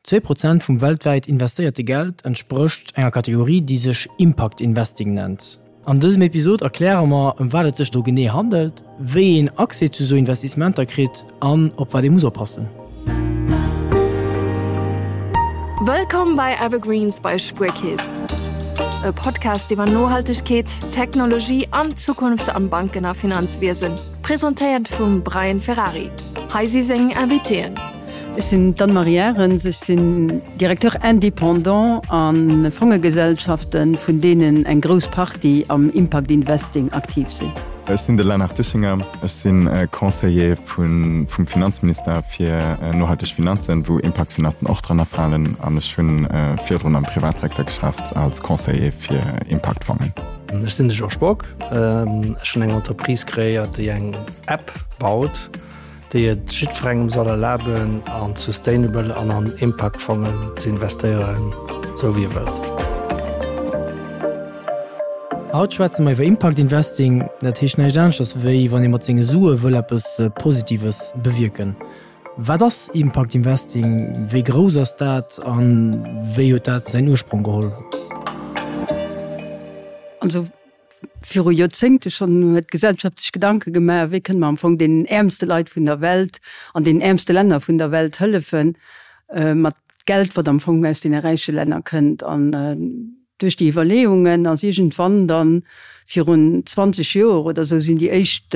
2% vum weltwäit investéierte Geld entsprécht enger Kategorie, déi sech Impact Investing nennt. An dësem Episod erkläre mer, ëm wat et sech do genee handelt, wéi een Accès zu sou Investissementer kritt an op wat ee muss oppassen. Wëllkomm bei Evergreens bei Spuerkeess, e Podcast iwwer Nohaltegkeet, Technologie an d'Zukunft am Banken a Finanzwiesen, presentéiert vum Brian Ferrari. Hei si seng Invitéen. Ech sinn d'Anne-Marie Arens, ech sinn Directeur indépendant a Fongegesellschaften, vun deenen eng grouss Partie am Impact Investing aktiv sinn. Ech sinn de Lennart Dischinger, ech si Conseiller vum Finanzminister fir nohalteg Finanzen, wou Impact-Finanzen och drënner falen, an ech hu virdrun am Privatsecteur geschafft als Conseiller fir Impact-Fongen. Ech sinn de Georges Bock, ech hunn eng Entreprise kreéiert, déi eng App baut, déi et jiddwerengem soll erlaben, an Sustainable an an Impact-Fongen ze investéieren, esou wéi e wëllt. Haut schwätze mer iwwer Impact Investing. Dat heescht näischt aneschters, wéi wann ee mat senge Sue wëll eppes Positives bewierken. Wat ass Impact Investing? Wéi grouss ass dat a wéi huet dat säin Ursprong geholl? Also Viru Joerzéngte schonn huet d'Gesellschaft sech Gedanke gemaach, wéi kënne mer am Fong deenen äermste Leit vun der Welt an deenen äermste Länner vun der Welt hëllefen, mat Geld, wat am Fong aus deene räiche Länner kënnt. An duerch déi Iwwerleeungen ass iergendwann dann, virun 20 Joer oder esou, sinn déi éischt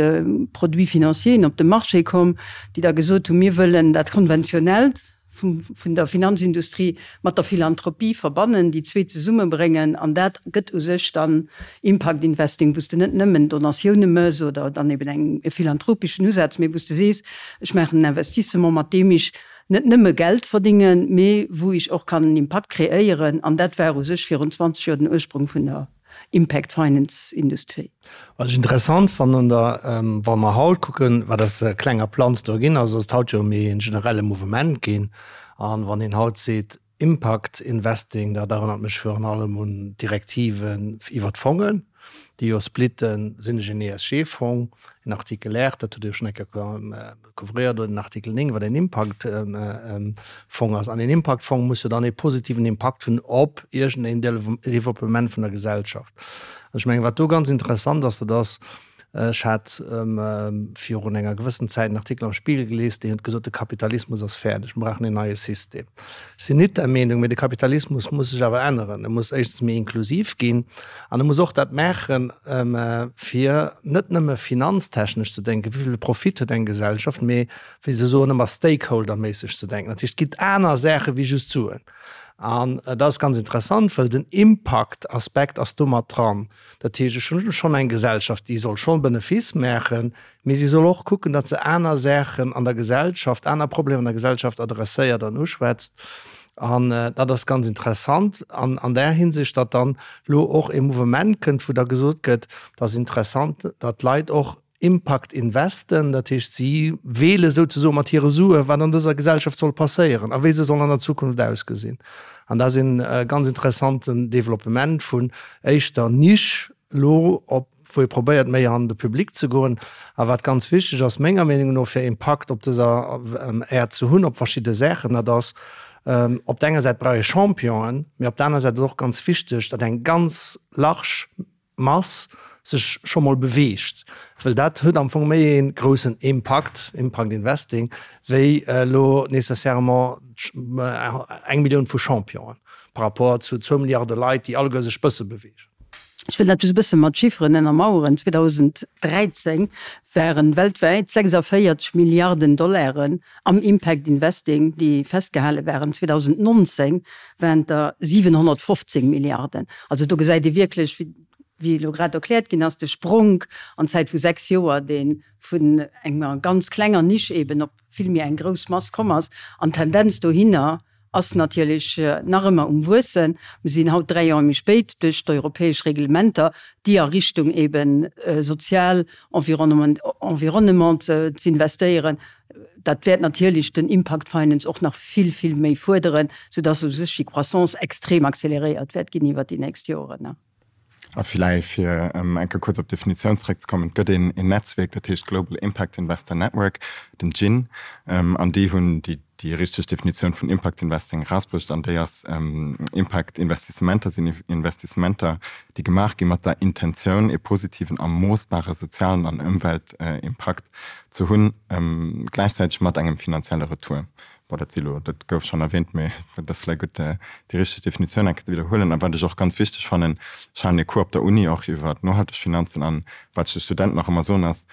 Produits financieren op de Marché komm, déi da gesot hunn, mir wëllen dat Konventionellt, vun der Finanzindustrie mat der Philanthropie verbannen, déi zwee zesummebréngen an dat gëtt u sech dann Impact Investing, wou s de net nëmmen Donatioune mëss oder dann eben eng e philanthropeschen Usaz, mee wou s de sees, ech maachen en Investissement, mat deem ech net nëmme Geld verdingen, mee wou ech och kann en Impakt kreéieren an dat war u sech virun 20 Joer den Ursprung vun der Impact Finance Industrie. Wat ech interessant fannen da, wa mer haut kucken, wat aus der klenger Planz do ginn ass, ass et haut jo méi en generelle Mouvement ginn. An wann een haut seet Impact Investing, dat erënnert mech virun allem un d'Direktiven iwwert d'Fongen, déi jo splitten, sinn ech en ESG-Fong, en Artikel R, dat hutt Dir jo schonn eng Kéier couvréiert, oder den Artikel 9, wat en Impaktfong ass. An een Impaktfong muss jo dann ee positiven Impakt hunn op iergendeen Développement vun der Gesellschaft. An ech mengen, wat do ganz interessant ass, dat ass, ech hat virun enger gewëssen Zäit en Artikel am Spiegel gelies, deen huet gesot, de Kapitalismus ass fäerdeg, mir brauchen een neie System. Ech sinn nit der Meenung, mee de Kapitalismus muss sech awer änneren. E muss éischtens méi inklusiv ginn an e muss och dat maachen, fir net nëmme finanztechnesch ze denken, wéi vill Profit huet eng Gesellschaft, mee wéi se soen ëmmer stakeholderméisseg ze denken. Dat heescht, et ginn aner Saache wéi just Suen. An dat ass ganz interessant, well den Impaktaspekt ass do mat dran. Dat heescht, ech hunn schonn eng Gesellschaft, déi soll schonn Benefice maachen, mee si soll och kucken, datt se aner Saachen an der Gesellschaft, aner Problemer an der Gesellschaft adresséiert an uschwätzt. An dat ass ganz interessant an an där Hinsicht, datt dann elo och e Mouvement kënnt, wou da gesot gëtt, dat ass interessant, datt d'Leit och Impact investen, dat heescht si weele souzesoe mat hire Sue wat an dëser Gesellschaft soll passéieren a wéi se soll an der Zukunft ausgesinn. An dat ass e ganz interessanten Developpement vun éischter Niche elo op wou ee probéiert méi an de Public ze goen. A wat ganz wichteg ass menger Meenung no fir Impakt op dëser Äerd ze hunn op verschidde Saachen, dat ass op der enger Säit brauch ee Championen, mee op der aner Säit ass och ganz wichteg, datt eng ganz large Mass sech scho mol beweegt, well dat huet am Fong méi ee groussen Impakt, Impact Investing, wéi elo nécessairement eng Millioun vu Championen par rapport zu zwou Milliarde Leit, déi alleguer sech bësse beweegen. Ech wëll dat just e bësse mat Chifferen ënnermaueren, 2013 waren weltwäit 46 Milliarden Dollaren am Impact Investing, déi festgehale waren. 2019 waren et der 715 Milliarden. Also do gesäit ee wierklech, wéi elo grad erkläert ginn ass, de Spronk an Zäit vu 6 Joer, dee vun enger ganz klenger Nisch eeben op vill méi eng grouss Mass komm ass. An d'Tendenz dohinner ass natierlech nach ëmmer um Wuessen. Mir sinn haut 3 Joer méi spéit duerch d'europäesch Reglementer, déi a Richtung eebe sozial Environnement z'investéieren, dat wäert natierlech den Impact Finance och nach vill, vill méi fuerderen, soudass u sech déi Croissance extrem accéléréiert wäert ginn iwwert déi nächst Joren. A villäicht, fir eng Kéier kuerz op d'Definitioun zeréckzekommen, Et gëtt een Netzwierk, dat heescht Global Impact Investor Network, den GIIN, an déi hunn déi déi richteg Definitioun vun Impact Investing erausbruecht, an déi ass, Impact Investissementer sinn Investissementer, déi gemaach gi mat der Intentioun, ee positiven a moossbare sozialen an Ëmweltimpakt ze hunn, gläichzäiteg mat engem finanzielle Retour. Bon, dat si lo, dat gouf schonn erwähnt, mee et ass vläicht gutt, déi richteg Definitioun eng Kéier ze widderhuelen. A wat ech och ganz wichteg fannen, ech halen ee Cours op der Uni och iwwer nohalteg Finanzen, an wat ech de Studenten och ëmmer soen ass,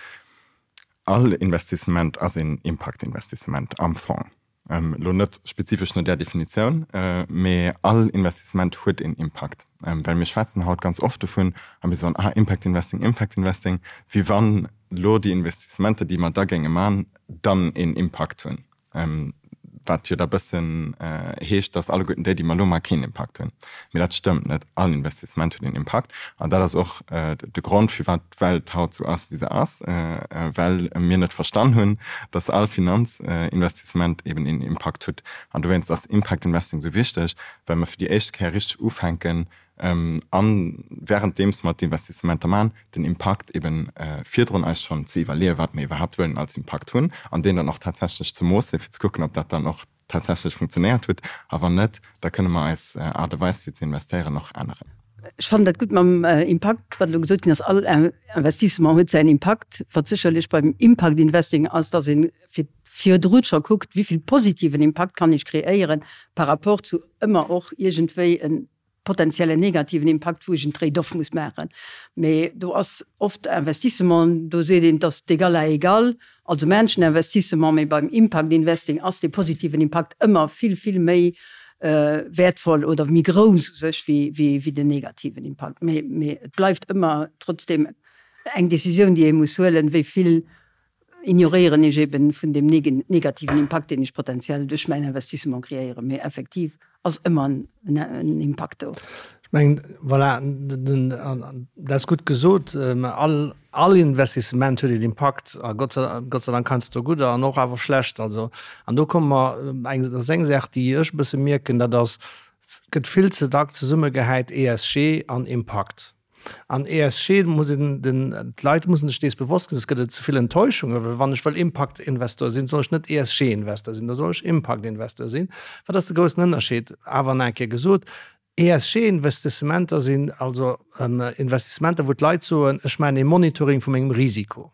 All Investissement ass een Impaktinvestissement am Fong. Elo net spezifesch no där Definitioun, mee all Investissement huet een Impakt. Well mir schwätzen haut ganz oft dovun a mir soen, ah Impact Investing, Impact Investing, wéi wann elo déi Investissementer, déi mer da géinge man, dann een Impakt hunn. Wat jo da bëssen heescht, datt alleguerten déi, déi mer elo maachen, keen Impakt hunn. Mee dat stëmmt net. All Investissement huet een Impakt. An dat ass och de Grond, firwat d'Welt haut esou ass, wéi se ass, well mir net verstan hunn, datt all Finanzinvestissement eben een Impakt huet. An dowéinst ass Impact Investing esou wichteg, well mer fir déi éischt Kéier richteg ufänken, A wärenddeems mer d'Investissementer maachen, den Impakt eben virdrun eis schonn ze iwwerleeën, wat mer iwwerhaapt wëllen als Impakt hunn, an deen dann och tatsächlech ze moossen, fir ze kucken, ob dat dann och tatsächlech funktionéiert huet. A wann net, da kënne mer eis Aart a Weis fir ze investéieren och änneren. Ech fannen dat gutt mam Impakt, wat elo gesot ginn ass. All Investissement huet säin Impakt. Wat sécherlech beim Impact Investing ass, dass ee fir virdru scho kuckt, wéi vill positiven Impakt kann ech kreéieren par rapport zu ëmmer och iergendwéi en potenziellen negativen Impakt, wou ech en Trade-off muss maachen. Mee do ass oft Investissement, do seet een, et ass d'égal à égal, also maachen ech en Investissement, mee beim Impact Investing ass dee positiven Impakt ëmmer vill, vill méi wäertvoll oder méi grouss u sech wéi den negativen Impakt. Mee, mee et bleift ëmmer trotzdem eng Décisioun, déi ee muss huelen, wéi vill ignoréieren ech eben vun deem negativen Impakt, deen ech potenziell duerch mäin Investissement kreéieren, mee effektiv ass ëmmer en Impakt do. Ech mengen, voilà, dat ass gutt gesot. All, all Investissement huet een Impakt, a Gott sei, Gott sei Dank heiansdo gudder an och awer schlecht. Also, an do komme mer, eng, dat ass eng Saach, déi ech e bësse mierken, dat ass, et gëtt vill ze dack zesummegehäit ESG an Impakt. An ESG muss een den, d'Leit mussen sech dees bewosst ginn, soss gëtt et ze vill Enttäuschungen, well wann ech wëll Impact-Investor sinn, soll ech net ESG-Investor sinn, da soll ech Impact-Investor sinn. Wat ass de groussen Ënnerscheed? Awer nach eng Kéier gesot, ESG-Investissementer sinn also Investissementer, wou d'Leit soen, ech maachen ee Monitoring vu mengem Risiko.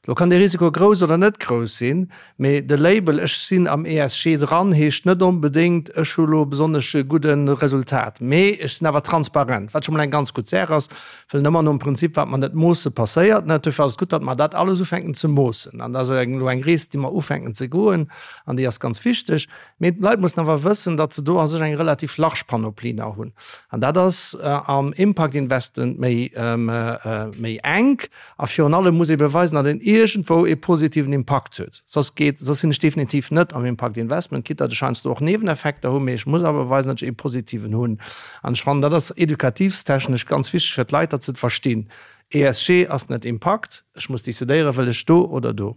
Lo kann dee Risiko grouss oder net grouss sinn, mee de Label ech sinn am ESG dran heescht net onbedéngt ech hu lo besonnesch e gudde Resultat, mee ech sinn awer transparent, wat scho mol eng ganz gutt Saach ass, well ëmmer nom Prinzip wat mer net moosse passéiert net. Dofir ass et gutt, datt mer dat alles ufänken ze moossen an dat ass elo eng Rees déi mer ufänken ze goen an déi ass ganz wichteg. Mee d'Leit mussen awer wëssen, datt se do a sech eng relativ large Panoplie nach hunn. An dat ass am Impact Investment méi, méi enk. A virun allem muss ee beweisen, datt een iergendwou ee positiven Impakt huet. Soss geet, soss sinn ech definitiv net am Impact Investment, quitte datt ech heiansdo och Nieweneffekter hunn, mee ech muss awer beweisen, datt ech ee positiven hunn. An ech fannen, dat ass edukativstechnesch ganz wichteg fir d'Leit, datt se et verstinn. ESG ass net Impakt. Ech muss decidéieren, wëll ech do oder do.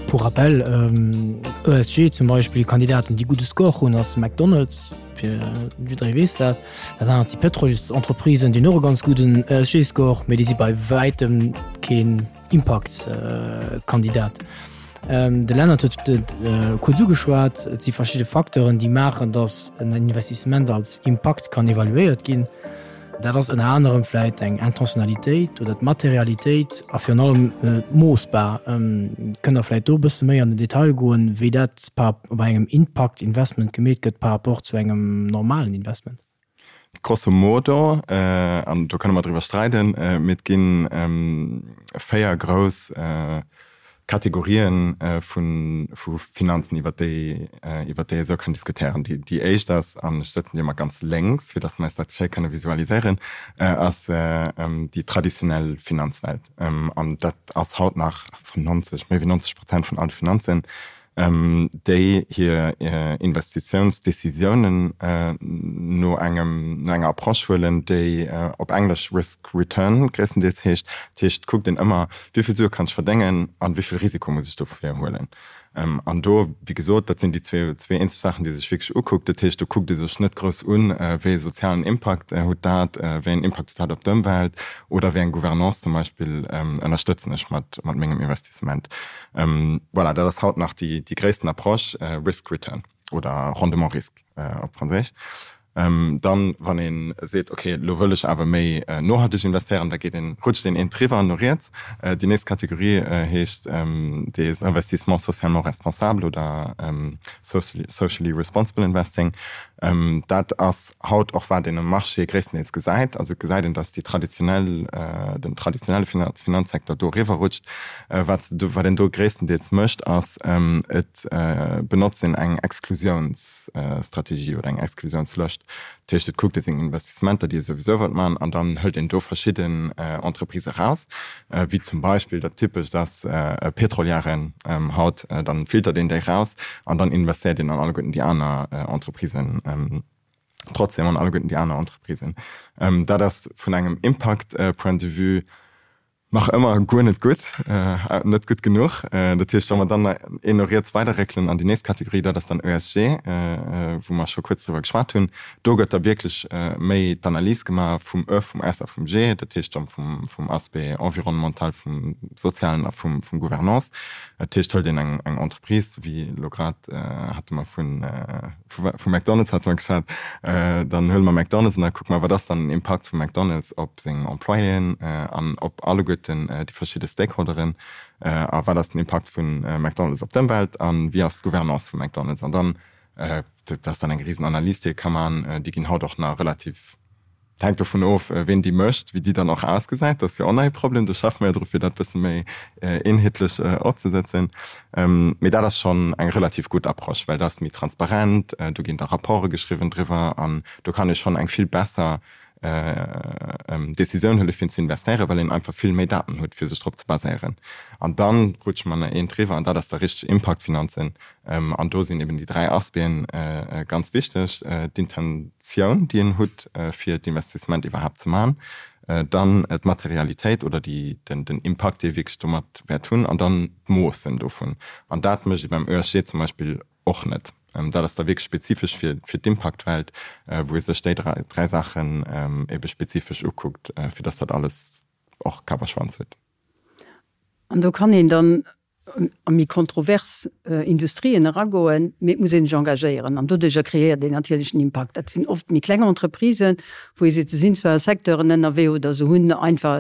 Pour rappel, ESG zum Beispill, Kandidaten déi gudde Score hunn ass McDonald's, fir jidderee weess dat. Dat anert si Pëtrolsentreprisen, déi hunn och e ganz gudden ESG-Score, mee déi si bei wäitem keen Impaktkandidat. De Lennart huet et kuerz ugeschwat, et si verschidde Facteuren, déi maachen, datt en Investissement als Impakt kann evaluéiert ginn. Dat ass ënner anerem vläit eng Intentionnalitéit oder d'Materialitéit a virun allem moossbar. Kënnt Der vläit do e bësse méi an den Detail goen, wéi dat bei engem Impact-Investment gemeet gëtt par rapport zu engem normalen Investment? Grosso modo, an do kënne mer driwwer streiden, mee et gi 4 grouss Kategorien vu Finanzen, iwwer déi iwwer déi ee sou kann diskutéieren. Déi éischt ass, an ech sëtzen déi ëmmer ganz lénks, fir datt mer eis dat schéi kënne visualiséieren, ass déi traditionell Finanzwelt. An dat ass haut nach 90, méi wéi 90 Prozent vun alle Finanzen. déi hir Investitiounsdecisiounen no engem, no enger Approche huelen, déi op Englesch Risk Return gréisstendeels heescht. Dat heescht, et kuckt een ëmmer, wéi vill Sue kann ech verdéngen an wéi vill Risiko muss ech dofir huelen. An do, wéi gesot, dat sinn déi zwee eenzeg Saachen, déi ee sech wierklech ukuckt. Dat heescht, do kuckt ee sech net grouss un, wéi ee sozialen Impakt huet dat, wéi een Impakt huet dat op d'Ëmwelt oder wéi eng Gouvernance zum Beispill ënnerstëtzen ech mat mengem Investissement. Voilà, dat ass haut nach déi gréissten Approche, Risk-Return oder Rendement-Risque op Franséisch. Dann, wann ee seet, ok, elo wëll ech awer méi nohalteg investéieren, da geet een, rutscht een eent driwwer no riets. Déi nächst Kategorie heescht des investissements socialement responsables oder socially responsible investing. Dat ass haut och wat een um Marché gréisstendeels gesäit. Also et gesäit een, datt déi traditionell, den traditionelle Finanzsecteur do eriwwer rutscht. Wat wat een do gréisstendeels mécht, ass et benotzt een eng Exklusiounsstrategie oder eng Exklusiounslëscht. Dat heescht, et kuckt ee seng Investissementer, déi ee souwisou wëllt maachen, an dann hëlt een do verschidden Entreprises eraus, wéi zum Beispill dat Typescht ass Pétrolièren haut, dann filtert een déi eraus an dann investéiert een an alleguerten déi aner Entreprisen trotzdem an alleguerten déi aner Entreprisen. Dat ass vun engem Impact Point de vue Nach ëmmer guer net gutt, net gutt genuch. Dat heescht, wa mer dann een no riets weiderréckelen an déi nächst Kategorie, dat ass dann ESG, wou mer scho kuerz driwwer geschwat hunn, do gëtt da wierklech méi d'Analys gemaach vum E, vum S a vum G, dat heescht dann vum Aspect environnemental, vum sozialen a vum Gouvernance. Dat heescht, hëlt een eng Entreprise, wéi elo grad hate mer vun, Vu McDonald's hate mer geschwat. Dann huele mer McDonald's an da kucke mer, wat ass dann den Impakt vu McDonald's op seng Employéen an op alleguerten déi verschidde Stakeholderen a wat ass den Impakt vu McDonald's op d'Ëmwelt a wéi ass d'Gouvernance vu McDonald's. An dann, dat ass dann eng risen Analys, déi ee ka maachen, déi ginn haut och nach relativ Et hänkt dovun of, ween déi mécht, wéi déi dann och ausgesäit. Dat ass jo och nach ee Problem. Do schaffe mer jo dru fir dat bësse méi eenheetlech opzesetzen. Mee dat ass schonn eng relativ gutt Approche, well dat ass méi transparent, do ginn da Rapporte geschriwwen driwwer an do kann ee schonn eng vill besser Decisioun huele fir ze investéieren, well een einfach vill méi Daten huet fir sech drop ze baséieren. An da rutsche mer nach eent driwwer an dat ass da richteg Impaktfinanzen. An do sinn eben déi 3 Aspecten ganz wichteg, d'Intentioun, déi een hutt, fir d'Investissement iwwerhaapt ze maachen, dann d'Materialitéit oder den Impakt, dee ee wierklech domat wäert hunn, an dann d'Moossen dovun. An dat mécht ee beim ESG zum Beispill och net. Dat ass da wierklech spezifesch fir d'Impaktwelt, wou ee sech déi 3 Saachen ebe spezifesch ukuckt, fir dass dat alles och Kapp a Schwanz huet. An do kann een dann a méi kontrovers Industrien eragoen, mee et muss ee sech engagéieren an doduercher kreéiert een natierlech en Impakt. Dat sinn oft méi kleng Entreprisen, wou ee seet, se sinn zwar a Secteuren ënnerwee oder se hunn einfach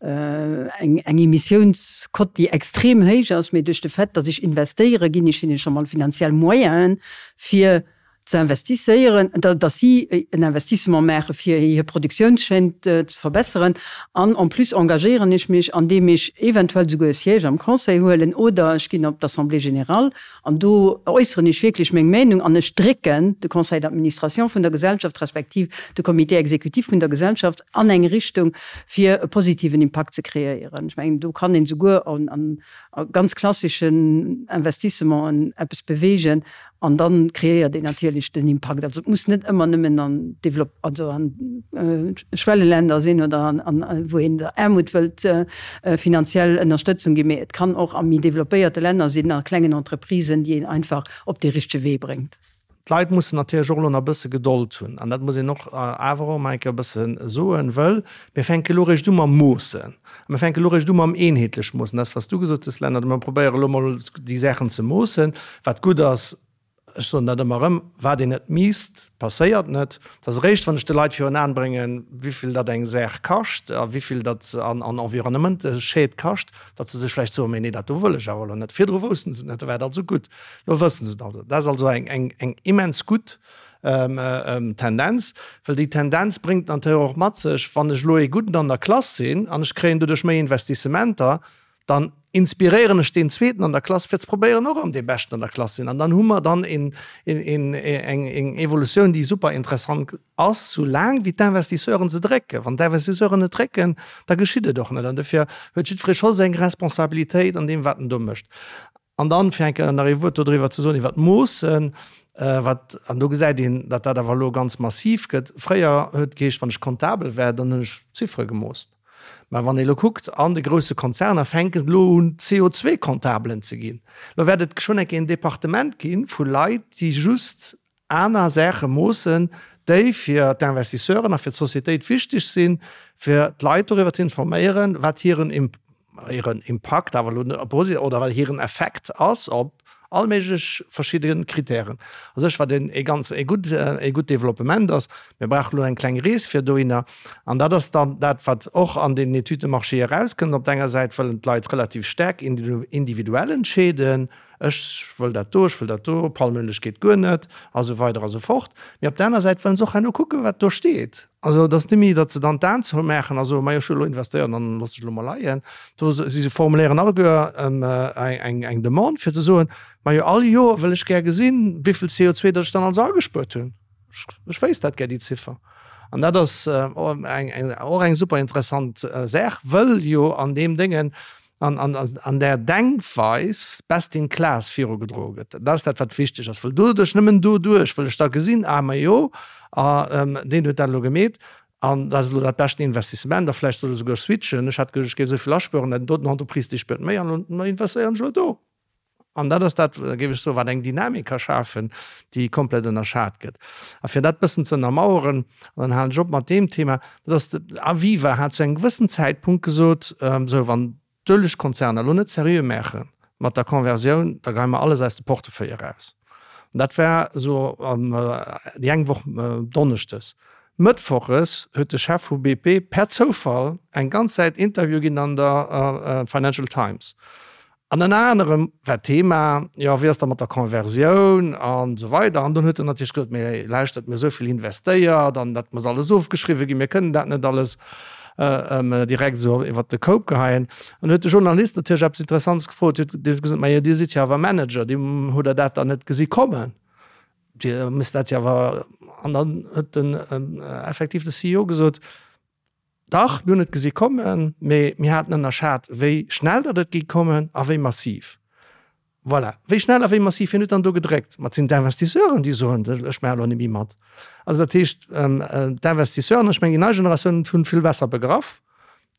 eng Emissiounsquote, déi extrem héich ass, mee duerch de Fait, datt ech investéiere, ginn ech hinne scho mol finanziell Moyenen, fir ze investisséieren, datt si en Investissement maache fir hir Produktiounschaîne ze verbesseren. An en plus engagéieren ech mech, andeem ech eventuell esouguer e Siège am Conseil huelen oder ech ginn op d'Assemblée générale an do äusseren ech wierklech meng Meinung an ech drécken de Conseil d'administration vun der Gesellschaft respektiv de Comité exécutif vun der Gesellschaft an eng Richtung, fir e positiven Impakt ze kreéieren. Ech mengen, do kann een esouguer a ganz klasseschen Investissementen eppes beweegen, An dann kreéiert een natierlech den Impakt. Also et muss net ëmmer nëmmen an Develop-, also an Schwelleländer sinn oder an, an wou een der Aarmut wëllt finanziell Ënnerstëtzung ginn, mee et kann och a méi developpéierte Länner sinn, a klengen Entreprisen, déi een einfach op dee richtege Wee bréngt. D'Leit mussen natierlech och elo nach e bësse Gedold hunn. An dat muss een och awer och emol eng Kéier e bësse soen, wëll mir fänke elo eréischt u mam Moossen. A mir fänke elo eréischt u mam eenheetlech Moossen. Dat, wat s du gesot hues, Lennart, mir probéiere elo mol déi Saachen ze moossen. Wat gutt ass, ech soen dat ëmmer erëm, wat een net miisst, passéiert net. Et ass eréischt, wann ech de Leit virun Aen bréngen, wéivill dat eng Saach kascht a wéivill dat an Environnementschied kascht, datt se sech vläicht soen, Mee nee, dat do wëll ech awer elo net. Virdru woussten se et net, da war et also gutt. Elo wëssen se et also. Dat ass also eng immens gutt Tendenz, well déi Tendenz bréngt natierlech och mat sech, wann ech elo ee Gudden an der Klass sinn an ech kréien doduerch méi Investissementer, dann inspiréieren ech deen Zweeten an der Klass, fir ze probéieren och an dee Beschten an der Klass sinn. An dann hu mer dann eng Evolutioun, déi super interessant ass, soulaang wéi d'Investisseuren se drécken. Wann d'Investisseuren net drécken, da geschitt et och net. An dofir huet jiddweree scho seng Responsabilitéit an deem, wat en do mécht. An dann, fir eng Kéier nach ee Wuert dodriwwer ze soen, iwwert d'Moossen, wat, an do gesäit een, datt dat awer elo ganz massiv gëtt. Fréier huet et geheescht, wann ech Comptabel war, dann hunn ech Ziffere gemoosst. Mä wann ee elo kuckt, an de grousse Konzerner fänken et elo un CO2-Comptabelen ze ginn. Elo wäert et geschwënn eng Kéier en Departement gi vu Leit, déi just aner Saache moossen, déi fir d'Investisseuren a fir d'Societéit wichteg sinn, fir d'Leit doriwwer ze informéieren, wat hiren hiren Impakt awer elo net posi oder wat hiren Effekt ass op all méiglech verschidde Kritären. A sech wat een ee ganz ee gutt ee gutt Developpement ass. Mir brauche elo eng kleng Rees fir dohinner. An dat ass dann dat, wat och an deenen Études de marché erauskënnt. Op der enger Säit wëllen d'Leit relativ staark individuell entscheeden, ech wëll dat do, ech wëll dat do, Palmöleg geet guer net a sou weider a sou fort. Mee op der aner Säit wëllen se och herno kucken, wat do steet. Also et ass net méi, datt se dann d'Aen zoumaachen a soen, majo ech hu elo investéiert an dann loosse ech elo mol leien. Do si formuléieren alleguer eng Demande fir ze soen, majo all Joer wëll ech gär gesinn, wéivill CO2 datt ech dann also agespuert hunn. Ech wéisst dat gär, déi Ziffer. An dat ass och eng super interessant Saach, wëll jo an deem Déngen an där Denkweis best in class virugedroe gëtt. Dat ass dat, wat wichteg ass, well doduerch, nëmmen doduerch wëll ech da gesinn, ah majo, deen huet dat elo gemeet an dat ass elo dat beschten Investissement a vläicht soll e souguer switchen, ech hat geduecht, ech géif esou vill aspueren, dat doten Entreprise, déi spuert méi an elo investéieren ech elo do. An dat ass dat, géif ech soen, wat eng Dynamik ka schafen, déi komplett ënnerschat gëtt. A fir dat bëssen ze ënnermaueren, an dann halen ech op mat deem Thema, dat ass, Aviva hat zu engem gewëssen Zäitpunkt gesot, esou, wann d'Uelegkonzerner elo net seriö maache mat der Conversioun, da geie mer alles aus de Portefeuille eraus. An dat war esou déi eng Woch donneschdes. Mëttwoches huet de Chef vu BP per Zoufall eng ganz Säit Interview ginn an der Financial Times. An ënner anerem war d'Thema, jo, wéi ass da mat der Conversioun an esou weider. An dunn huet en natierlech gesot, mee lauschtert, mir hu esou vill investéiert an dat muss alles ofgeschriwwe ginn, mir kënnen dat net alles direkt esou iwwert de Koup geheien. An huet de Journalist natierlech eppes Interessantes gefrot, huet dee gesot, majo, Dir sidd jo awer Manager, Dir hutt Der dat dann net gesi kommen? Dir misst dat jo awer. An dann huet den effektiv de CEO gesot, Dach, mir hunn et gesi kommen, mee mir haten ënnerschat, wéi schnell datt et géing kommen a wéi massiv. Voilà, wéi schnell a wéi massiv, wien huet dann do gedréckt? Ma et sinn d'Investisseuren, déi soen, ech maache elo net méi mat. Also dat heescht, d'Investisseuren, ech mengen déi nei Generatioun hunn vill besser begraff,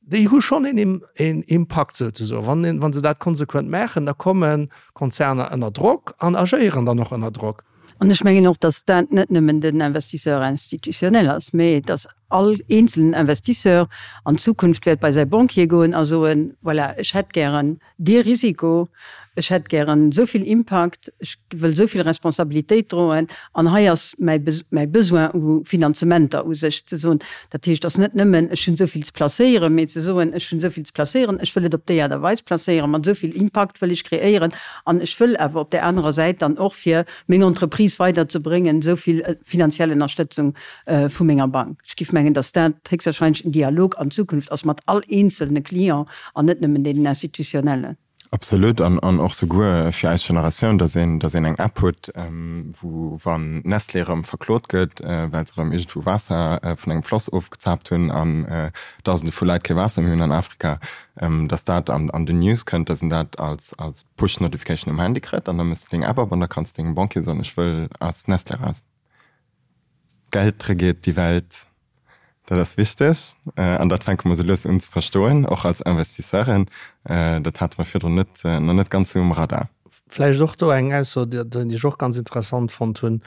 déi hu schonn een Impakt souzesoen. Wann, wa se dat konsequent maachen, da komme Konzerner ënner Drock an agéieren dann och ënner Drock. An ech mengen och, datt dat net nëmmen den Investisseur institutionnel ass, mä datt all eenzelen Investisseur an Zukunft wäert bei säi Banquier goen a soen, Voilà, ech hätt gären dee Risiko, ech hätt gären esou vill Impakt, ech wëll esou vill Responsabilitéit droen an hei ass mäi mäi Besoin u Finanzementer u sech ze soen. Dat heescht, et ass net nëmmen, ech hunn esou vill ze placéieren, mä ze soen, ech hunn esou vill ze placéieren, ech wëll et op déi Aart a Weis placéieren, mat esou vill Impakt wëll ech kreéieren An ech wëll awer op där anerer Säit dann och, fir meng Entreprise weiderzebréngen, esou vill finanziell Ënnerstëtzung vu menger Bank. Ech géif mengen, datt dat héchstwahrscheinlech en Dialog an Zukunft ass mat all eenzelne Client an net nëmmen deenen institutionnellen. Absolut. An och souguer fir eis Generatioun, datt een, datt een eng App huet, wou, wann Nestlé erëm verklot gëtt, well se erëm iergendwou Waasser vun engem Floss ofgezaapt hunn an Dausende vu Leit kee Waasser méi hunn an Afrika, dass dat an an den News kënnt, dass een dat als als Push Notification um Handy kritt an da méchs de deng App op an da kanns de dengem Banquier soen, ech wëll aus Nestlé raus. Geld regiert die Welt, dat ass wichteg an dat fänke mer sou lues un ze verstoen, och als Investisseuren. Dat hate mer virdrun net nach net ganz sou um Radar. Vläicht och do eng Ausso, déi ech och ganz interessant fonnt hunn,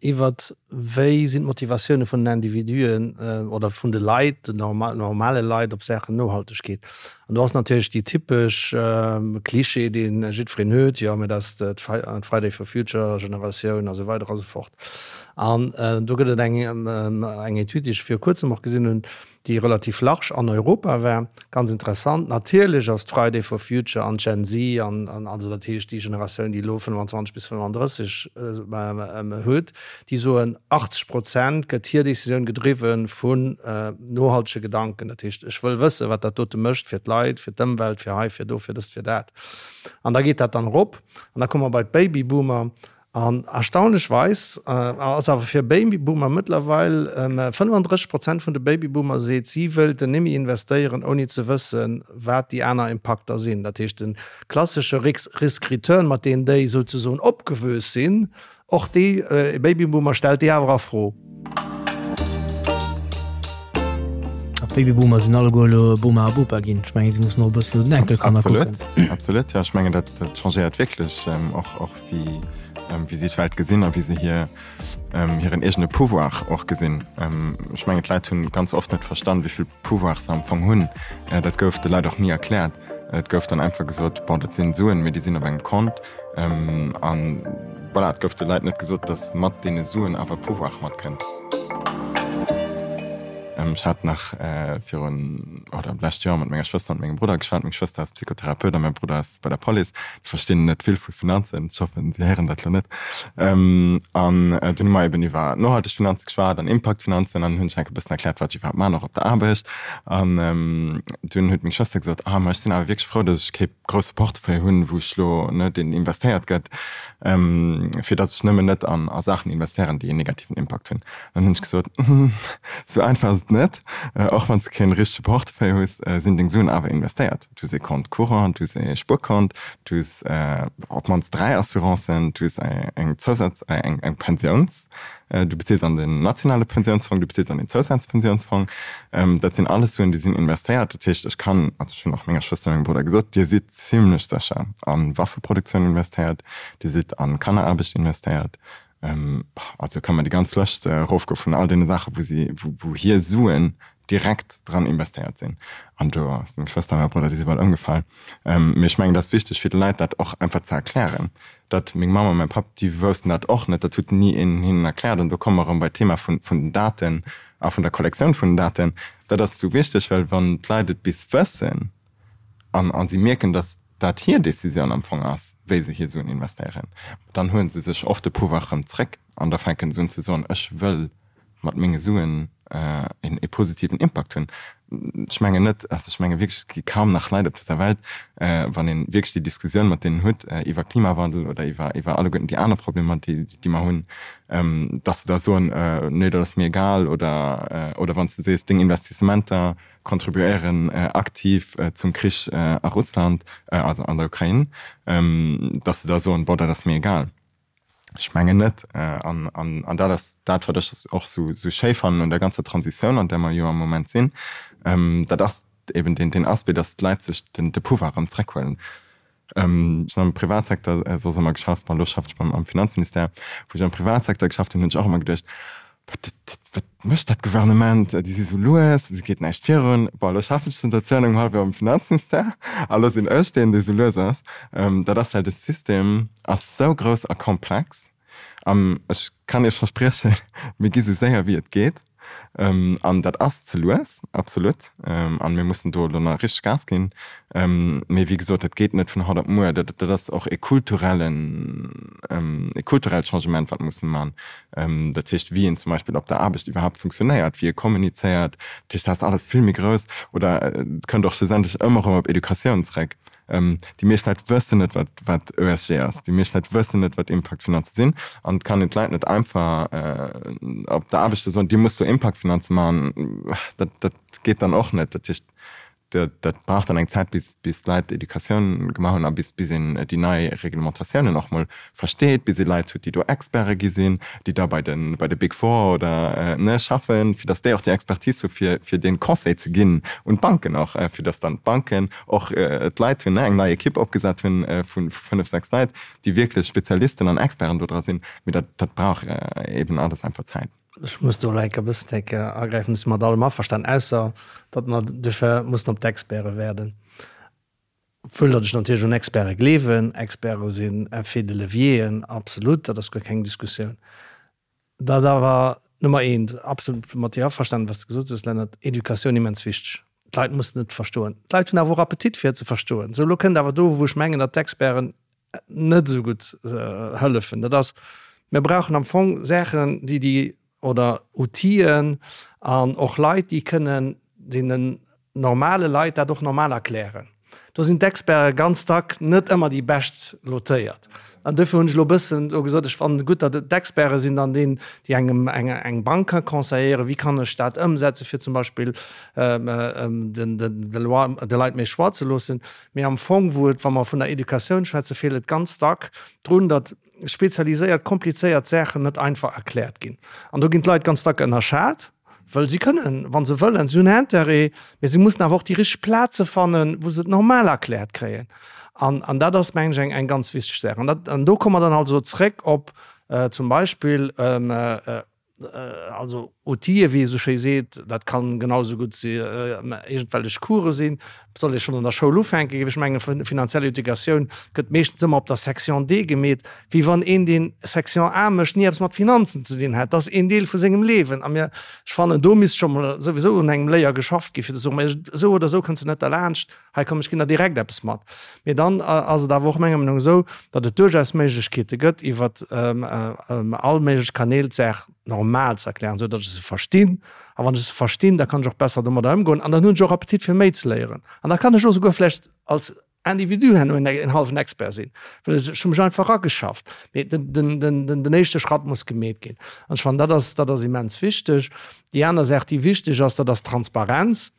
Iwwert wéi sinn d'Motivatioune vun den Individuen oder vun de Leit, den normale Leit op Saachen Nohaltegkeet. An do ass natierlech déi typesch Klischee, dee jiddwereen huet, jo mä dat ass d'Friday for Future Generatioun a sou weider a sou fort. An do gëtt et eng Etüd, déi ech viru kuerzem och gesinn hunn, déi relativ large an Europa war, ganz interessant. Natierlech ass d'Friday for Future an d'Gen Z an also dat heescht déi Generatioun, déi elo 25 bis 35 huet, déi soen, 80 Prozent gëtt hir Decisioun gedriwwe vun nohaltege Gedanken. Dat heescht, ech wëll wëssen, wat dat dote mécht fir d'Leit, fir d'Ëmwelt, fir hei, fir do, fir dëst, fir dat. An da geet dat dann erop an da komme mer bei d'Babyboomer An erstaunlechweis ass awer fir Babyboomer mëttlerweil 35 Prozent vun de Babyboomer seet, si wëilten némme investéieren, ouni ze wëssen, wat déi aner Impakter sinn. Dat heescht, de klassesche Risk-Return, mat deem déi souzesoen opgewuess sinn, och dee Babyboomer stellt déi awer a Fro. D'Babyboomer sinn alleguer elo Boma a Bopa ginn. Ech mengen, si mussen och e bëssen no den Enkelkanner kucken. Absolut, absolut. Jo, ech mengen, dat, dat changéiert wierklech och, och wéi, wéi si d'Welt gesinn a wéi se hir, hiren eegene Pouvoir och gesinn. Ech mengen, d'Leit hunn ganz oft net verstan, wéi vill Pouvoir se am Fong hunn. Dat gouf de Leit och ni erkläert. Et gouf dann einfach gesot, bon, dat sinn Suen, mee déi sinn op engem Kont. An voilà, et gouf de Leit net gesot, datt mat deene Suen awer Pouvoir matkënnt. Ech hat nach virun, oder d'lescht Joer mat menger Schwëster an mengem Brudder geschwat. Meng Schwëster ass Psychotherapeut a mäi Brudder ass bei der Police. Déi verstinn net vill vu Finanzen. Ech hoffen, si héieren dat elo net. An dunn hu mer eben iwwer nohalteg Finanze geschwat an Impaktfinanzen an hunn ech enk e bëssen erkläert, wat ech iwwerhaapt man, och op der Aarbecht. An dunn huet meng Schwëster gesot, Ah, ma ech sinn awer wierklech frou, datt ech kee grousse Portefeuille hunn, wou ech elo, ne, deen investéiert gëtt, fir datt ech nëmmen net an a Saachen investéieren, déi en negativen Impakt hunn. Dann hunn ech gesot, Sou einfach ass et net. Och wann s de kee richtege Portefeuille hues, sinn deng Suen awer investéiert. Du hues ee Compte courant, du hues ee Spuerkont, du hues op d'mannst 3 Assurancen, du hues eng Zousaz-, eng Pensiouns-, Du bezils an den nationale Pensiounsfong, du bezils an den Zousazpensiounsfong. Dat sinn alles Suen, déi sinn investéiert. Dat heescht, ech kann, also ech hunn och menger Schwëster a mengem Brudder gesot, Dir sidd zimlech sécher a Waffeproduktioun investéiert, Dir sidd a Kanneraarbecht investéiert. Also kann mer déi ganz Lëscht erofgoe vun all deene Saachen, wou si, wou hir Suen direkt dran investéiert sinn. An do ass meng Schwëster a mäi Brudder, déi si bal ëmgefall. Mee ech mengen, et ass wichteg fir de Leit dat och einfach ze erklären, datt meng Mamm a mäi Papp, déi woussten dat och net, dat huet ni een hinnen erkläert. An do komme mer erëm bei d'Thema vun den Daten a vun der Kollektioun vun den Daten. Dat ass esou wichteg, well wann d'Leit et bis wëssen an a si mierken, datt dat hir Decisioun am Fong ass, wéi se hir Suen investéieren, dann huele se sech oft de Pouvoir erëm zréck an da fänken se un ze soen, ech wëll mat menge Suen ee positiven Impakt hunn. Ech mengen net, also ech menge wierklech, et gi kaum nach Leit op dëser Welt, wann ee wierklech déi Diskussioun mat deenen huet iwwer Klimawandel oder iwwer iwwer alleguerten déi aner Problemer, déi déi mer hunn, datt se da soen, nee dat ass mir egal oder oder wann s de sees, deng Investissementer contribuéieren aktiv zum Krich a Russland, also an der Ukrain, datt se da soen, bon dat ass mir egal. Ech mengen net. An dat ass dat, wat ech och esou schéi fannen un der ganzer Transitioun, an där mer jo am Moment sinn. Dat ass eben deen Aspect, datt d'Leit sech de Pouvoir erëm zréckhuelen. Ech hunn am Privatsecteur soss ëmmer geschafft, bon, elo schaffen ech am Finanzministère. Wou ech am Privatsecteur geschafft hunn, hunn ech och ëmmer geduecht, Wat mécht dat Gouvernement? Déi si sou lues, et geet näischt virun. Bon, elo schaffen ech zënter zwou an engem hallef Joer am Finanzministère a lo sinn ech deen, dee sou lues ass. Dat ass, well de System ass sou grouss a komplex. An ech kann Iech verspriechen, mir gi sou séier wéi et geet. An dat ass ze lues, absolut. An mir mussen do elo nach richteg Gas ginn. Mee wéi gesot, dat geet net vun haut op muer. Dat ass och e kulturellen, e kulturellt Changement, wat musse man. Dat heescht, wéi een zum Beispill op der Aarbecht iwwerhaapt funktionéiert, wéi ee kommunizéiert. Dat heescht, dat ass alles vill méi grouss. Oder et kënnt och schlussendlech ëmmer erëm op Educatioun zréck. Déi meescht Leit wëssen net, wat, wat ESG ass. Déi meescht Leit wëssen net, wat Impaktfinanze sinn. An et kann een d'Leit net einfach op der Aarbecht soen, Dir musst do Impaktfinanze maachen. Dat, dat geet dann och net. Dat heescht, Dat brauch dann eng Zäit, bis d'Leit Educatioun gemaach hunn a bis een déi nei Reglementatiounen och mol versteet, bis ee Leit huet, déi do Experte gi sinn, déi da bei de bei de Big Four oder ne schaffen, fir datt déi och déi Expertise hu fir fir dee Conseil ze ginn un d'Banken och, fir datt dann d'Banken och d'Leit hunn, ne eng nei Ekipp opgesat hunn vu fënnef, sechs Leit, déi wierklech Spezialisten an Experten do dra sinn. Mee dat dat brauch eeben alles einfach Zäit. Ech muss do elo enk e bëssen enk agräifen. Ech si mat allem averstanen, ausser datt mer duerfir mussen op d'Experte waarden. Obwuel datt ech natierlech un Experte gleewen. Experte sinn Effets de levieren, absolut, dat ass guer keng Diskussioun. Dat awer Nummer eent, absolut mat dir averstanen, wat s de gesot hues, Lennart, Educatioun immens wichteg. D'Leit mussen et verstoen. D'Leit hunn awer och Appetit fir et ze verstoen. Sou, elo kënnt awer do, wou ech mengen, datt d'Experten net esou gutt hëllefen, dat ass, mir brauchen am Fong Saachen, déi déi, oder Outiller an och Leit, déi kënnen deenen normale Leit dat och normal erklären. Do sinn d'Experte ganz dack net ëmmer déi bescht lotéiert. An duerfir hunn ech elo e bëssen do gesot, ech fannen et gutt, datt et d'Experte sinn dann deen, déi engem eng eng Bank ka conseilléieren, wéi kann ech dat ëmsetzen, fir zum Beispill den de Loi de Leit méi Choix ze loossen. Mee am Fong, wou et, wa mer vun der Educatioun schwätzen, feelt et ganz dack drun, datt spezialiséiert, komplizéiert Saachen net einfach erkläert ginn. An do ginn d'Leit ganz dack ënnerschat. Wëll si kënnen, wa se wëllen, si hunn Intérêt, mee si mussen awer och déi richteg Plaze fannen, wou se et normal erkläert kréien. An, an dat ass, mengen ech, eng, eng ganz wichteg Saach. An dat, an do komme mer dann also zréck op zum Beispill, also Outile, wéi ee sou schéi seet, dat kann genau esou gutt iergendwellech Course sinn, soll ee schonn an der Schoul ufänken, géif ech mengen. Finanziell Educatioun gëtt meeschtens ëmmer op der Section D gemeet, wéi wann een, deen Section A mécht, ni eppes mat Finanzen ze dinn hätt. Dat ass een Deel vu sengem Liewen. A mir, ech fannen, do misst scho mol souwisou un engem Léier geschafft ginn, fir ze soen, mä esou oder esou kënns de net derlaanscht, hei komm, ech ginn der direkt eppes mat. Mee dann ass et awer och menger Meenung esou, datt et duerchaus Méiglechkeete gëtt, iwwer all méiglech Kanäl d'Saach normal ze erklären, esou datt ech se verstinn. A wann ech se verstinn, da kann ech och besser domadder ëmgoen an dann hunn ech och Appetit fir méi ze léieren. An da kann ech och souguer vläicht als Individu herno en hallwen Expert sinn, well ech hu mech einfach erageschafft. Mee den éischte Schratt muss gemeet ginn. An ech fannen, dat ass, dat ass immens wichteg. Déi aner Saach, déi wichteg ass, dat ass d'Transparenz.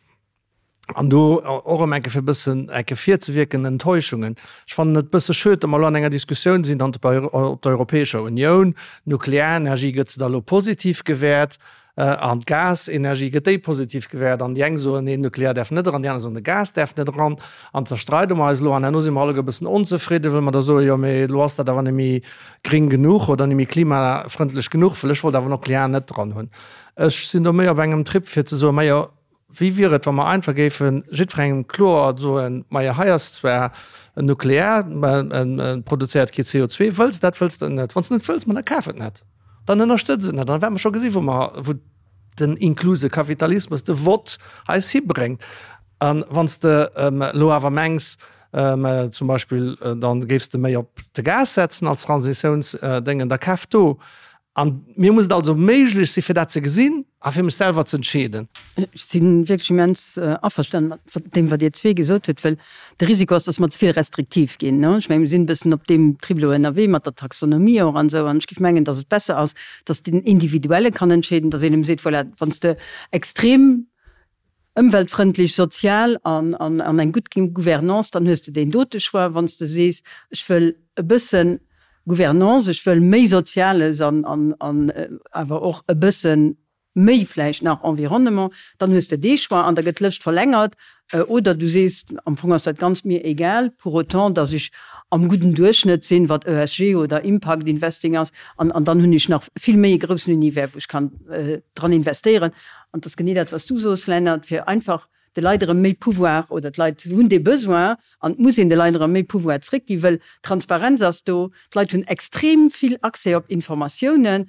An do och erëm eng Kéier fir e bëssen eng Kéier virzewierken, Enttäuschungen. Ech fannen et e bësse schued, datt mer elo an enger Diskussioun sinn an op der Europäescher Unioun, d'Nuklearenergie gëtt se da elo positiv gewäert an d'Gasenergie gëtt déi positiv gewäert an déi eng soen, nee, Nuklear däerf net eran, déi aner soen, de Gas däerf net eran an zerstreide mer eis elo an herno si mer alleguer e bëssen onzefridden, well mer da soen, jo mee elo ass dat awer net méi gring genuch oder net méi klimafrëndlech genuch, well ech wollt awer Nuklear net dran hunn. Ech sinn do méi op engem Trip fir ze soen, majo, Wéi wier et, wa mer einfach géife jiddwerengem kloer soen, Majo, hei ass zwar nuklear, mä et produzéiert kee CO2. Wëlls de dat, wëlls de et net? Wann s de net wëlls, ma da kaf et net, dann ënnerstëtz et net. An da wäerte mer scho gesi wou mer, wou den inkluse Kapitalismus, de Vott eis hibréngt. A wann s de elo awer mengs, zum Beispill, da géifs de méi op de Gas setzen als Transitiounsdéngen, da kaf do. An mir muss et also méiglech si fir dat ze gesinn a fir mech selwer ze entscheeden. Ech si wierklech immens averstanen mat deem, wat Dir zwee gesot hutt, well de Risiko ass, datt mer ze vill restriktiv ginn. Ech mengen, mir sinn e bëssen op deem Trip elo ënnerwee mat der Taxonomie och an esou. An ech géif mengen, datt et besser ass, datt den Individuelle kann entscheeden, datt een em seet, voilà, wann s de extrem ëmweltfrëndlech, sozial an an eng gutt Gouvernance, dann hues de deen dote Choix. Wann s de sees, ech wëll e bësse Gouvernance, ech wëll méi Soziales an an an awer och e bësse méi vläicht nach Environnement, dann hues de dee Choix an da gëtt d'Lëscht verlängert. Oder du sees, am Fong ass dat Ganzt mir egal, pour autant dass ech am gudden Duerchschnëtt sinn, wat ESG oder Impact Investing ass, an an dann hunn ech nach vill méi e groussen Univers, wou ech kann dran investéieren. An et ass genee dat, wat s du soos, Lennart, fir einfach de Leit erëm méi Pouvoir, oder d'Leit hunn dee Besoin an et muss een de Leit erëm méi Pouvoir zréckginn, wëll d'Transparenz ass do, d'Leit hunn extrem vill Accès op Informatiounen,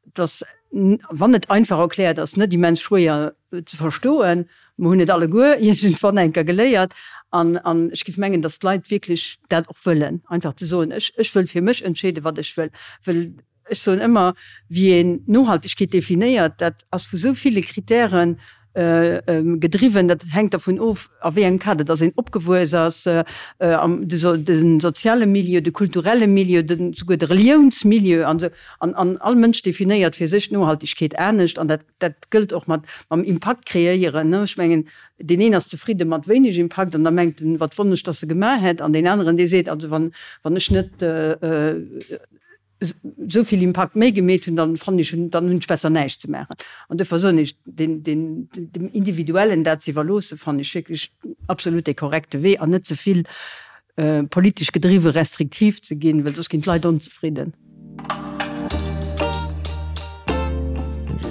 et ass, wann et einfach erkläert ass, net immens schwéier ze verstoen. Mer hunn et alleguer iergendwann eng Kéier geléiert an ech géif mengen, datt d'Leit wierklech dat och wëllen, einfach ze soen, ech wëll fir mech entscheeden, wat ech wëll, wëll Ech soen ëmmer, wéi een Nohaltegkeet definéiert, dat ass vu sou ville Kritäre gedriwwen, dat hänkt dervun of, a wéi engem Kader dass een opgewuess ass, de soziale Milieu, de kulturelle Milieu, souguer de Reliounsmilieu an esou. An all Mënsch definéiert fir sech d'Nohaltegkeet anescht an dat dat gëllt och mat mam Impakt kreéieren. Ech mengen, deen een ass zefridde mat wéineg Impakt an da mengt en, wat wonnesch, dass e gemaach hätt, an deen aneren, dee seet, also wann wann ech net esou vill Impakt méi gemeet hunn, dann fannen ech, dann hunn ech besser näischt ze maachen. An duerfir soen ech, den, den, dem Individuellen dat ze iwwerloossen, fannen ech wierklech absolut dee korrekte Wee an net ze vill politesch gedriwwe restriktiv ze ginn, well soss ginn d'Leit onzefridden.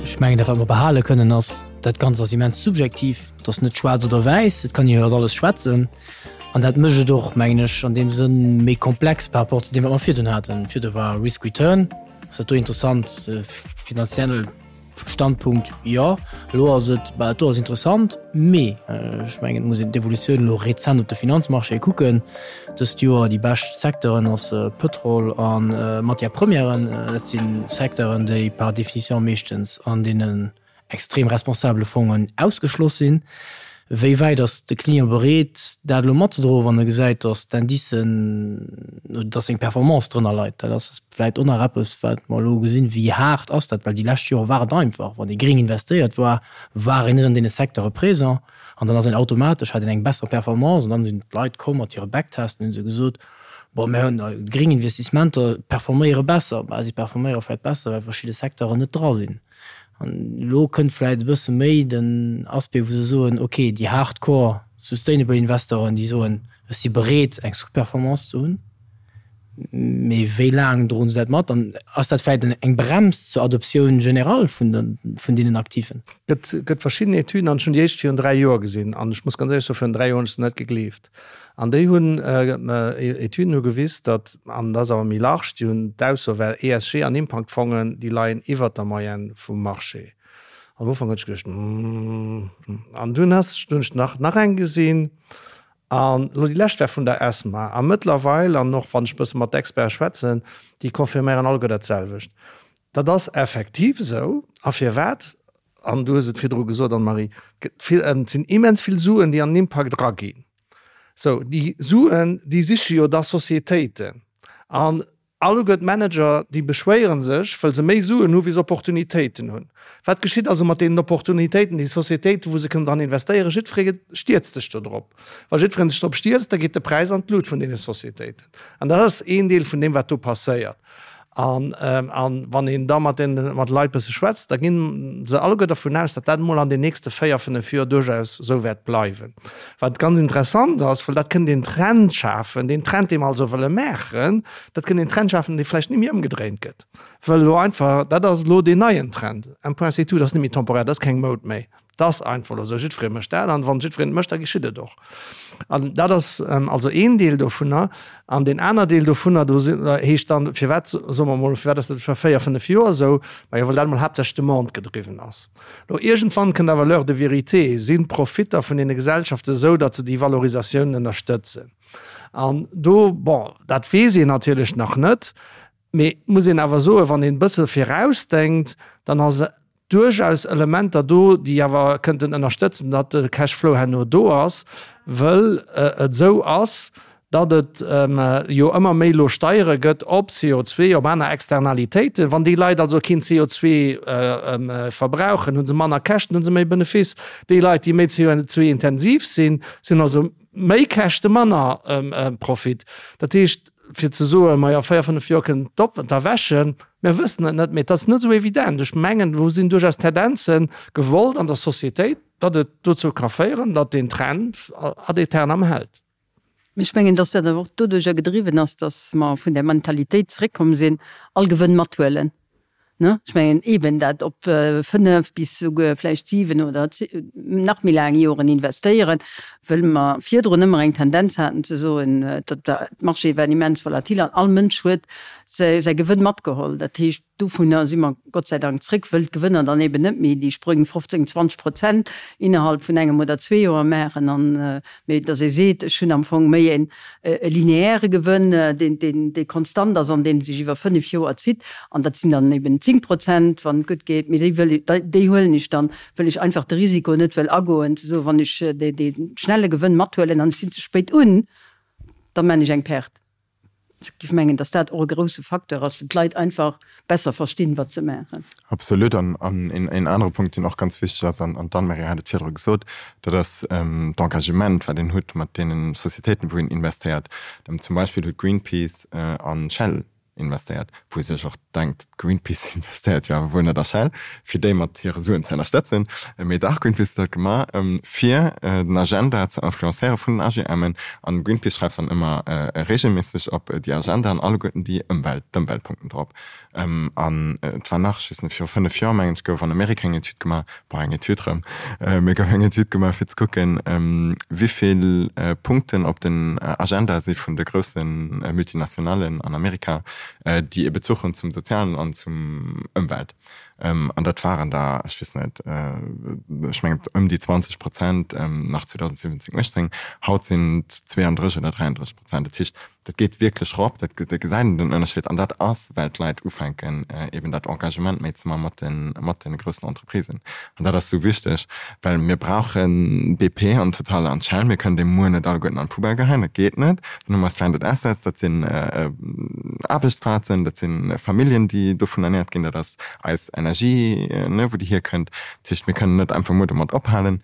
Ech mengen, dat wat mer behale kënnen ass, dat Ganzt ass immens subjektiv, et ass net schwaarz oder wäiss, et kann een iwwer alles schwätzen. An dat mécht et och, mengen ech, an deem Sënn méi komplex par rapport zu deem, wat mer virdrun haten. Virdru war Risk Return, ass dat do interessant, finanziell Standpunkt, jo. Elo ass et, bah, dat do ass interessant, mee ech mengen, et muss een d'Evolutioun elo rezent op de Finanzmarchéë kucken. Dëst Joer déi bescht Secteuren ass Pëtrol a Matières premièren. Dat si Secteuren, déi par définition meeschtens an deenen extrem responsabele Fongen ausgeschloss sinn. Wéi wäit ass de Client bereet, dat elo matzedroen, wann e gesäit, datt d'Indicen, datt seng Performance drënner leit? Dat ass vläicht och nach eppes, wat mer elo gesinn. Wéi haart ass dat? Well déi lescht Jore war et einfach, wann ee gréng investéiert war, war een net an deene Secteure présent an dann ass een automatesch, hat een eng besser Performance an dann sinn d'Leit komm mat hire Backtesten, hunn se gesot, bon, mir hunn gréng Investissementer performéiere besser. Bah, si performéiere vläicht besser, well verschidde Secteuren net dra sinn. An elo kënnt vläicht e bësse méi den Aspect, wou se soen, okay, déi hardcore sustainable Investoren, déi soen, ech si bereet eng Sous-Performance ze hunn, mee wéi laang droen se dat mat? An ass dat vläicht eng Brems zur Adoptioun générale vun de, vun deenen Aktiven? Et gëtt verschidden Etüden, an ech hunn déi éischt virun 3 Joer gesinn, an ech muss ganz éierlech soen, virun 3 Joer hunn ech se net gegleeft. An déi hunn, Etüden hu gewis, datt, an dat ass awer méi large, déi hunn d'Ausso, well ESG an Impaktfongen, déi leien iwwert der Moyenne vum Marché. Am Ufank hunn ech geduecht, Hm. An dunn ass, hunn ech nach, nach eng gesinn, an elo déi lescht war vun der ESMA. A mëttlerweil, an och wann ech e bësse mat Experte schwätzen, déi confirméieren alleguer dat selwecht. Dat ass effektiv esou. A firwat? An du hues et virdru gesot, Anne-Marie, et sinn immens vill Suen, déi an den Impakt eraginn. Sou, déi Suen, déi siche jo da Societéiten. An alleguer d'Manager, déi beschwéiere sech, well se méi Suen hu wéi se Opportunitéiten hunn. Wat geschitt also mat deenen Opportunitéiten, déi Societéiten, wou se kënnen dran investéieren? Jiddweree stierzt sech do drop. Wa jiddweree sech drop stierzt, da geet de Präis an d'Lut vun deene Societéiten. An dat ass een Deel vun deem, wat do passéiert. An wann een da mat den mat Leit bësse schwätzt, da ginn se alleguer dervun aus, datt dat emol an den nächste 4, 5 Joer duerchaus esou wäert bleiwen. Wat ganz interessant ass, well dat kënnt een Trend schafen, deen Trend, dee mer also wëlle maachen, dat kënnt een Trend schafen, dee vläicht net méi ëmgedréint gëtt, well elo einfach, dat ass elo deen neien Trend, un point c'est tout, dat ass net méi temporär, dat ass keng Moud méi. 't ass einfach elo esou, jiddweree mécht dat an wann jiddwereen et mécht, da geschitt et och. An dat ass also een Deel dovunner. An deen aner Deel dovunner, do heescht dann, firwat, soe mer emol, firwat ass dat fir 4, 5 Joer esou? Majo, well dat emol haaptsächlech Demande gedriwwen ass. Elo iergendwann kënnt awer l'heure de vérité, Sinn d'Profitter vun deene Gesellschaften esou, datt se déi Valorisatiounen ënnerstëtzen? An do, bon, dat weess een natierlech nach net, mee muss een awer soen, wann een e bësse virausdenkt, dann ass duerchaus Elementer do, déi awer kënnten ënnerstëtzen, datt de Cashflow herno do ass, wëll et esou ass, datt et jo ëmmer méi elo Steiere gëtt op CO2, op aner Externalitéiten. Wann déi Leit also keen CO2 verbrauchen, hu se manner Käschten, hu se méi Benefiss. Déi Leit, déi méi CO2-intensiv sinn, sinn also méi Käschte, manner Profit. Dat heescht, fir ze soen, majo, 4, 5 Joer kënnen d'Erwächen, mir wëssen et net, mee et ass net esou evident. Ech mengen, do sinn duerchaus Tendenze gewollt an der Societéit, datt et dozou ka féieren, datt deen Trend ad aeternam hält. Mee ech mengen, datt dat awer och doduerjer gedriwwen ass, datt mer vun där Mentalitéit zeréckkomm sinn, all Gewënn mathuelen. Ne? Ech mengen eeben dat op 5 bis souguer vläicht 7 oder nach méi laang Joren investéieren, wëll mer virdrun ëmmer eng Tendenz haten ze soen, datt d'Marchéë waren immens volatil an all Mënsch huet säi Gewënn matgeholl. Dat heescht, dovunner si mer Gott sei Dank zréck, wëll d'Gewënner dann eeben net méi déi Sprëng 15, 20 Prozent innerhalb vun engem oder zwee Joer maachen an, mee datt ee seet, ech hunn am Fong méi een e lineaire Gewënn, deen dee konstant ass an dee sech iwwer 5 Joer zitt, an dat sinn dann eben 10 Prozent, wann et gutt geet, mee déi wëll, déi huelen ech dann, wëll ech einfach de Risiko net wëll agoen, ze soen, wann ech dee dee schnelle Gewënn mathuelen an ech sinn ze spéit un, da man ech eng Perte. Ech géif mengen, datt dat och e grouse Facteur ass, fir d'Leit einfach besser verstinn, wat se maachen. Absolut. An een anere Punkt, deen och ganz wichteg ass, an d'Anne-Marie hat et virdru gesot, dat ass d'Engagement, wat een huet mat deene Societéiten, wou een investéiert. Zum Beispill huet Greenpeace a Shell investéiert, wou ee sech och denkt, Greenpeace investéiert jo awer wuel net a Shell, fir déi mat hire Suen ze ënnerstëtzen. Mee dach, Greenpeace huet dat gemaach, fir den Agenda ze influencéiere vun den AGMen. An Greenpeace schreift dann ëmmer reegelméisseg op déi Agenda an alleguerten déi Ëmwelt, d'Ëmweltpunkten drop. An et war nach, ech weess net, viru 5 Joer, mengen ech, gouf an Amerika eng Etüd gemaach, bon, eng Etüd erëm, mee gouf eng Etüd gemaach, fir ze kucken, wéi vill Punkten op den Agenda si vun de grousse Multinationalen an Amerika, déi e Bezuch hunn zum Sozialen an zum Ëmwelt. An dat waren der, ech weess net, ech mengen ëm déi 20 Prozent nach 2017, 18. Haut sinn et 32 oder 33 Prozent. Dat heescht, dat geet wierklech erop, dat gesäit een den Ënnerscheed. An dat ass, well d'Leit ufänken, eben dat Engagement méi ze maache mat de, mat de groussen Entreprisen. An dat ass esou wichteg, well mir brauche BP an Total an Shell. Mir kënnen déi muer net alleguerten an d'Poubelle geheien, dat geet net. Dann hu mer Stranded Assets, dat sinn Aarbechtsplazen, dat si Familljen, déi dovun ernäert ginn, dat ass eis Energie. Energie, ne, wou déi hierkënnt. Dat heescht, mir kënnen net einfach muer domat ophalen,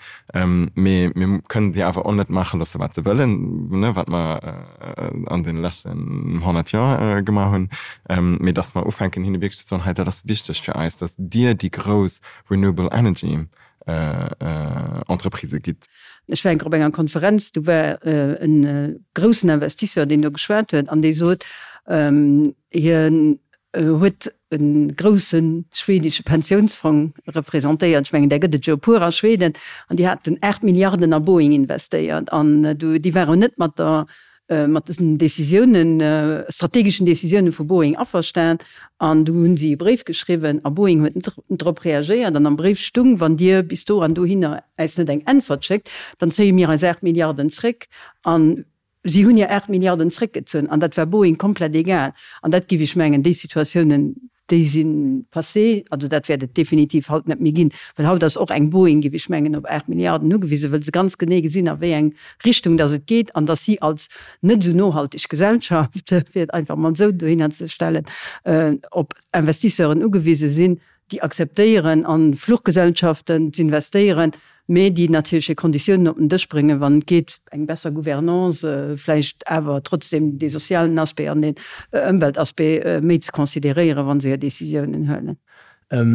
mee mir kënnen déi awer och net maache loosse wat se wëllen, ne, wat mer an deene leschten 100 Joer gemaach hunn, mee datt mer ufänken hinne wierklech ze soen, hei dat ass wichteg fir eis, datt Dir déi grouss Renewable Energy Entreprisë gitt. Ech war eng Kéier op enger Konferenz, do war e groussen Investisseur, deen do geschwat huet an dee sot, hien huet e grousse schwedesche Pensiounsfong representéiert, ech mengen där gëtt et jo e puer a Schweden, an déi haten 8 Milliarden a Boeing investéiert an déi waren net mat der mat dësen Décisiounen, strategeschen Décisiounen vu Boeing averstan an du hunn si e Bréif geschriwwen a Boeing huet net drop reagéiert an am Bréif stung, wann Dir bis do an dohinner äis net eng Äntwert schéckt, dann zéie mir eis 8 Milliarden zréck an si hunn hir 8 Milliarden zréckgezunn an dat war Boeing komplett egal an dat géif ech mengen, déi Situatiounen Déi si passé, also dat wäert et definitiv haut net méi ginn, well haut ass och eng Boeing, géif ech mengen, op 8 Milliarden ugewisen, wëll se ganz genee gesinn, a wéi eng Richtung datt et geet an datt si als net esou nohalteg Gesellschaft, fir et einfach emol esou dohinner ze stellen, op Investisseuren ugewise sinn, déi akzeptéieren, a Fluchgesellschaften z'investéieren, mä déi natierlech hir Konditiounen op den Dësch bréngen, wann et geet, eng besser Gouvernance, vläicht awer trotzdem dee sozialen Aspect an den Ëmweltaspect méi ze consideréieren, wa se hir Décisiounen huelen.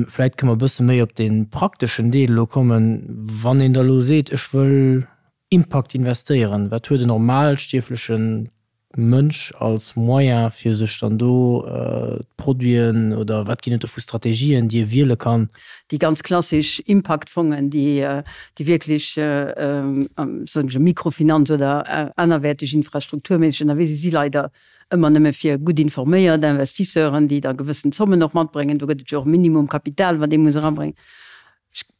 Vläicht kënne mer e bësse méi op dee prakteschen Deel elo kommen. Wann een da elo seet, ech wëll Impact investéieren, wat huet en normalstierfleche Mënsch als Moyen fir sech dann do d'Produiten oder wat ginn et do vu Strategien, déi e wiele kann? Déi ganz klassesch Impact-Fongen, déi wierklech, soen ech, Mikrofinanz oder anerwäerteg infrastrukturméisseg ënnerwee sinn, si leider ëmmer nëmme fir gutt informéiert Investisseuren, déi da gewëssen Zommen och matbréngen. Do gëtt et jo och e Minimumkapital, wat ee muss erabréngen.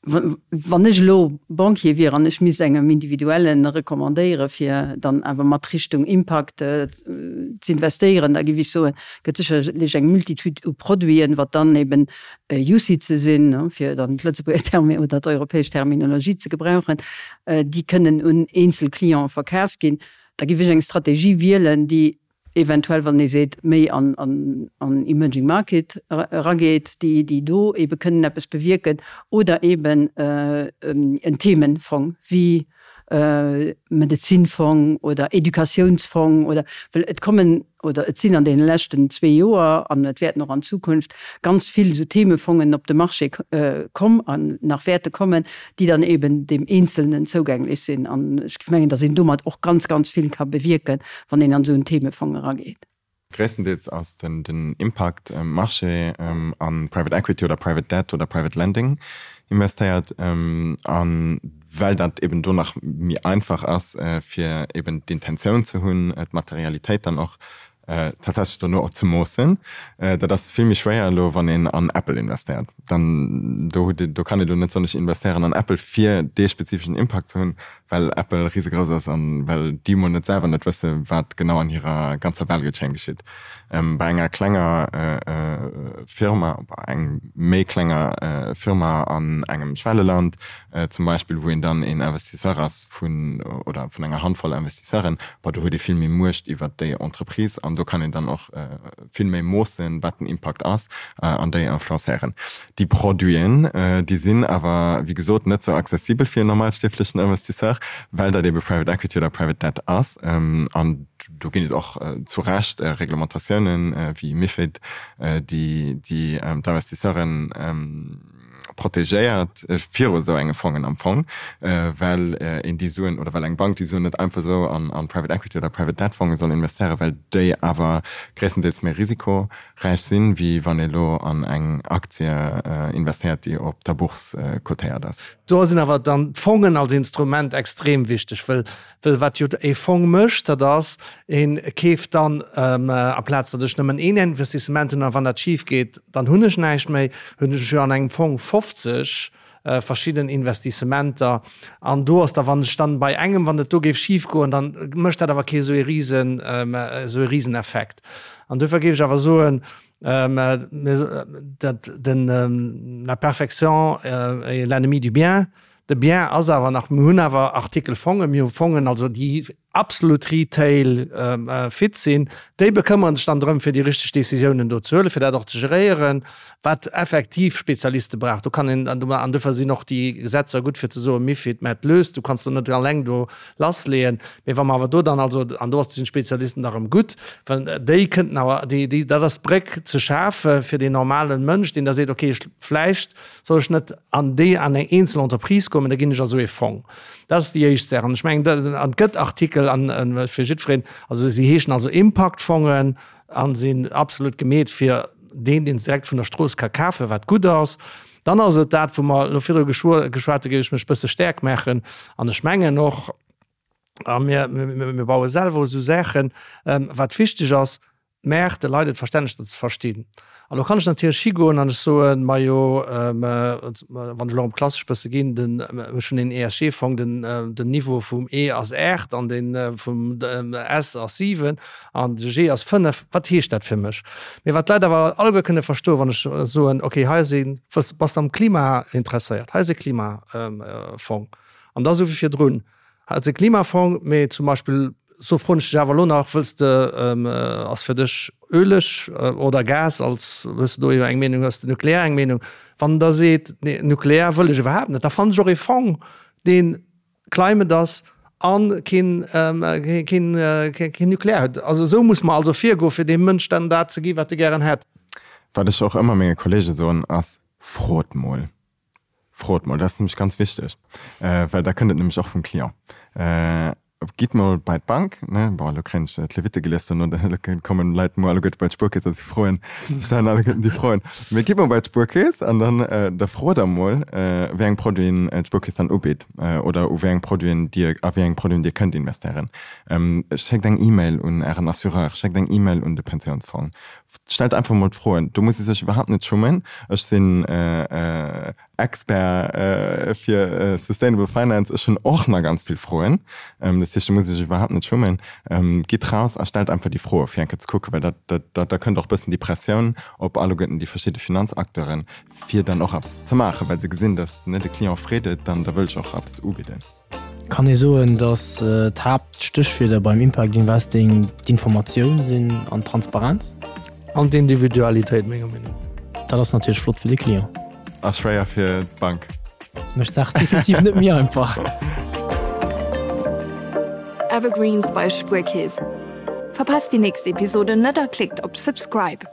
Wann ech elo Banquier wier an ech misst engem Individuellen recommandéiere fir dann awer mat Richtung Impact z'investéieren, da géif ech soen, gëtt sécherlech eng Multitude u Produiten, wat dann eben UCITSe sinn, fir dann d'Lëtzebuerger Terme oder d'europäesch Terminologie ze gebrauchen, déi kënnen un eenzel Cliente verkaaft ginn. Da géif ech eng Strategie wielen, déi eventuell, wann ee seet, méi an emerging market erageet, déi do ebe kënnen eppes bewierken, oder eben en Themenfong wéi Medezinfong oder Educatiounsfong oder, well et kommen oder et sinn an deene leschten zwee Joer an et wäerten och an Zukunft ganz vill esou Themefongen op de Marché komm an nach wäerte kommen, déi dann eben deem Eenzelnen zougänglech sinn. An ech géif mengen, datt een domat och ganz, ganz vill ka bewierken, wann een an esou en Themefong erageet. Gréisstendeels ass den Impact Marché a Private Equity oder Private Debt oder Private Lending investéiert. A well dat eben do nach méi einfach ass, fir eben d'Intentioun ze hunn, d'Materialitéit dann och tatsächlech dono och ze moossen. Dat ass vill méi schwéier elo, wann een an Apple investéiert. Dann do hutt Dir, do kann ee lo net soen, ech investéieren an Apple fir dee spezifeschen Impact ze hunn, well Apple risegrouss ass an well déi mol net selwer net wësse wat genau an hirer ganzer Value Chain geschitt. Bei enger klenger Firma, bei engem méi klenger Firma an engem Schwelleland zum Beispill, wou een dann een Investisseur ass vun oder vun enger Handvoll Investisseuren, bon, do huet ee vill méi Muecht iwwert déi Entreprise an do kann een dann och vill méi moossen, wat den Impakt ass an déi influencéieren. Déi Produiten, déi sinn awer, wéi gesot, net sou accessibel fir en normalstierflechen Investisseur, well dat ebe Private Equity oder Private Debt ass. An do ginn et och zu Recht Reglementatiounen, wéi MiFID, déi d'Investisseuren protegéiert viru esou enge Fongen am Fong, well een déi Suen oder well eng Bank déi Suen net einfach esou an Private Equity oder Private Debt Fonge soll investéieren, well déi awer gréisstendeels méi risikoräich sinn, wéi wann ee lo an eng Aktie investéiert, déi op der Bourse cotéiert ass. Do sinn awer dann d'Fongen als Instrument extrem wichteg, well Well wat jo e Fong mécht, dat ass, e keeft dann, amplaz datt ech nëmmen een Investissement hunn a wann dat schif geet, dann hunn ech näischt méi, hunn ech jo an engem Fong 50 verschidden Investissementer. An do ass da, wann ech dann bei engem, wann et do géif schif goen, dann mécht dat awer kee esou ee Risen, esou ee Riseneffekt. An duerfir géif ech awer soen, dat den, la perfection est l'ennemi du bien. De Bien ass awer nach, mir hunn awer Artikel Fongen, mir hu Fongen, also déi. absolut Retail fit sinn, déi bekëmmere sech dann drëm, fir déi richteg Décisiounen do ze huelen, fir dat och ze geréieren, wat effektiv Spezialiste brauch. Do kann een, an dofir sinn och déi Gesetzer gutt, fir ze soen, Mifid, mä et löst, du kanns do net alleng do lassleeën. Mee wa mer awer do dann also, an do ass sinn d'Spezialisten da rëm gutt, well déi kënnten awer, déi, déi, dat ass d'Bréck ze schafe fir deen normalen Mënsch, deen da seet, okay, ech, vläicht soll ech net an déi, an eng eenzel Entreprise goen, mä da ginn ech a sou ee Fong. Dat ass déi éischt Saach. An ech mengen, an et gëtt Artikel an fir jiddwereen, also si heeschen also Impaktfongen a sinn absolut gemeet fir deen, deen se direkt vun der Strooss ka kafen, wat gutt ass. Dann ass et dat, wou mer elo virdru geschwat hu, géif ech mech e bësse stäerk maachen. An ech mengen och, a mir, mir baue selwer esou Saachen, wat wichteg ass, D'Mäert de Leit et verständlech ze verstinn. An elo kann ech natierlech higoen an ech soen, majo, wann ech elo erëm klassesch bësse ginn, den, ech hunn een ESG-Fong, den, den Niveau vum E ass 8 an dee vum S ass 7 an de G ass 5. Wat heescht dat fir mech? Mee wat d'Leit awer alleguer kënne verstoen, wann ech soen, okay, hei ass een, bass de am Klima interesséiert, hei ass e Klimafong. An da sou wéi virdrun, Also e Klimafong, mee zum Beispill, so froen ech dech awer elo nach, wëlls de, ass fir dech Öleg oder Gas als, hues de do eng Meenung, hues de Nuklear eng Meenung? Wann en da seet, nee Nuklear wëll ech iwwerhaapt net, da fannen ech och ee Fong, dee climate ass a keen, keen, keen Nuklear huet. Also esou muss mer also virgoen, fir deem Mënsch dann dat ze gi wat e gären hätt. Wat ech och ëmmer menge Kollege soen ass, frot mol. Frot mol, dat ass nämlech ganz wichteg, well da kënnt et nämlech och vum Client. Gitt mol bei d'Bank, ne, bon, elo kréien ech d'Levitte gelies dono, elo kommen d'Leit muer alleguerte bei d'Spuerkeess a si froen, stellen alleguerten déi Froen. Mee gitt mol bei d'Spuerkeess an dann, da frot der mol, wéi eng Produiten d'Spuerkeess dann ubitt oder u wéi eng Produiten Dir, a wéi eng Produiten Dir kënnt investéieren. Schéckt eng E-Mail un Ären Assureur, schéckt eng E-Mail un de Pensiounsfong, Stellt einfach mol d'Froen. Do muss ee sech iwwerhaapt net schummen. Ech sinn Expert fir Sustainable Finance. Ech hunn och nach ganz vill Froen. Dat heescht, do muss ee sech iwwerhaapt net schummen. Gitt raus a stellt einfach déi Froe fir eng Kéier ze kucken, well dat, dat, da kënnt och e bëssen déi Pressioun op alleguerten déi verschidde Finanzacteuren, fir dann och eppes ze maachen, well se gesinn, datt, ne, de Client freet et, dann da wëll ech och eppes ubidden. Kann ee soen, datt d'Haaptstéchwierder beim Impact Investing d'Informatioun sinn an d'Transparenz? An d'Individualitéit, menger Meenung no. Dat ass natierlech flott fir de Client. A schwéier fir d'Bank. Mécht d'Saach definitiv net méi einfach. Evergreens bei Spuerkeess. Verpasst déi nächst Episode net a klickt op Subscribe.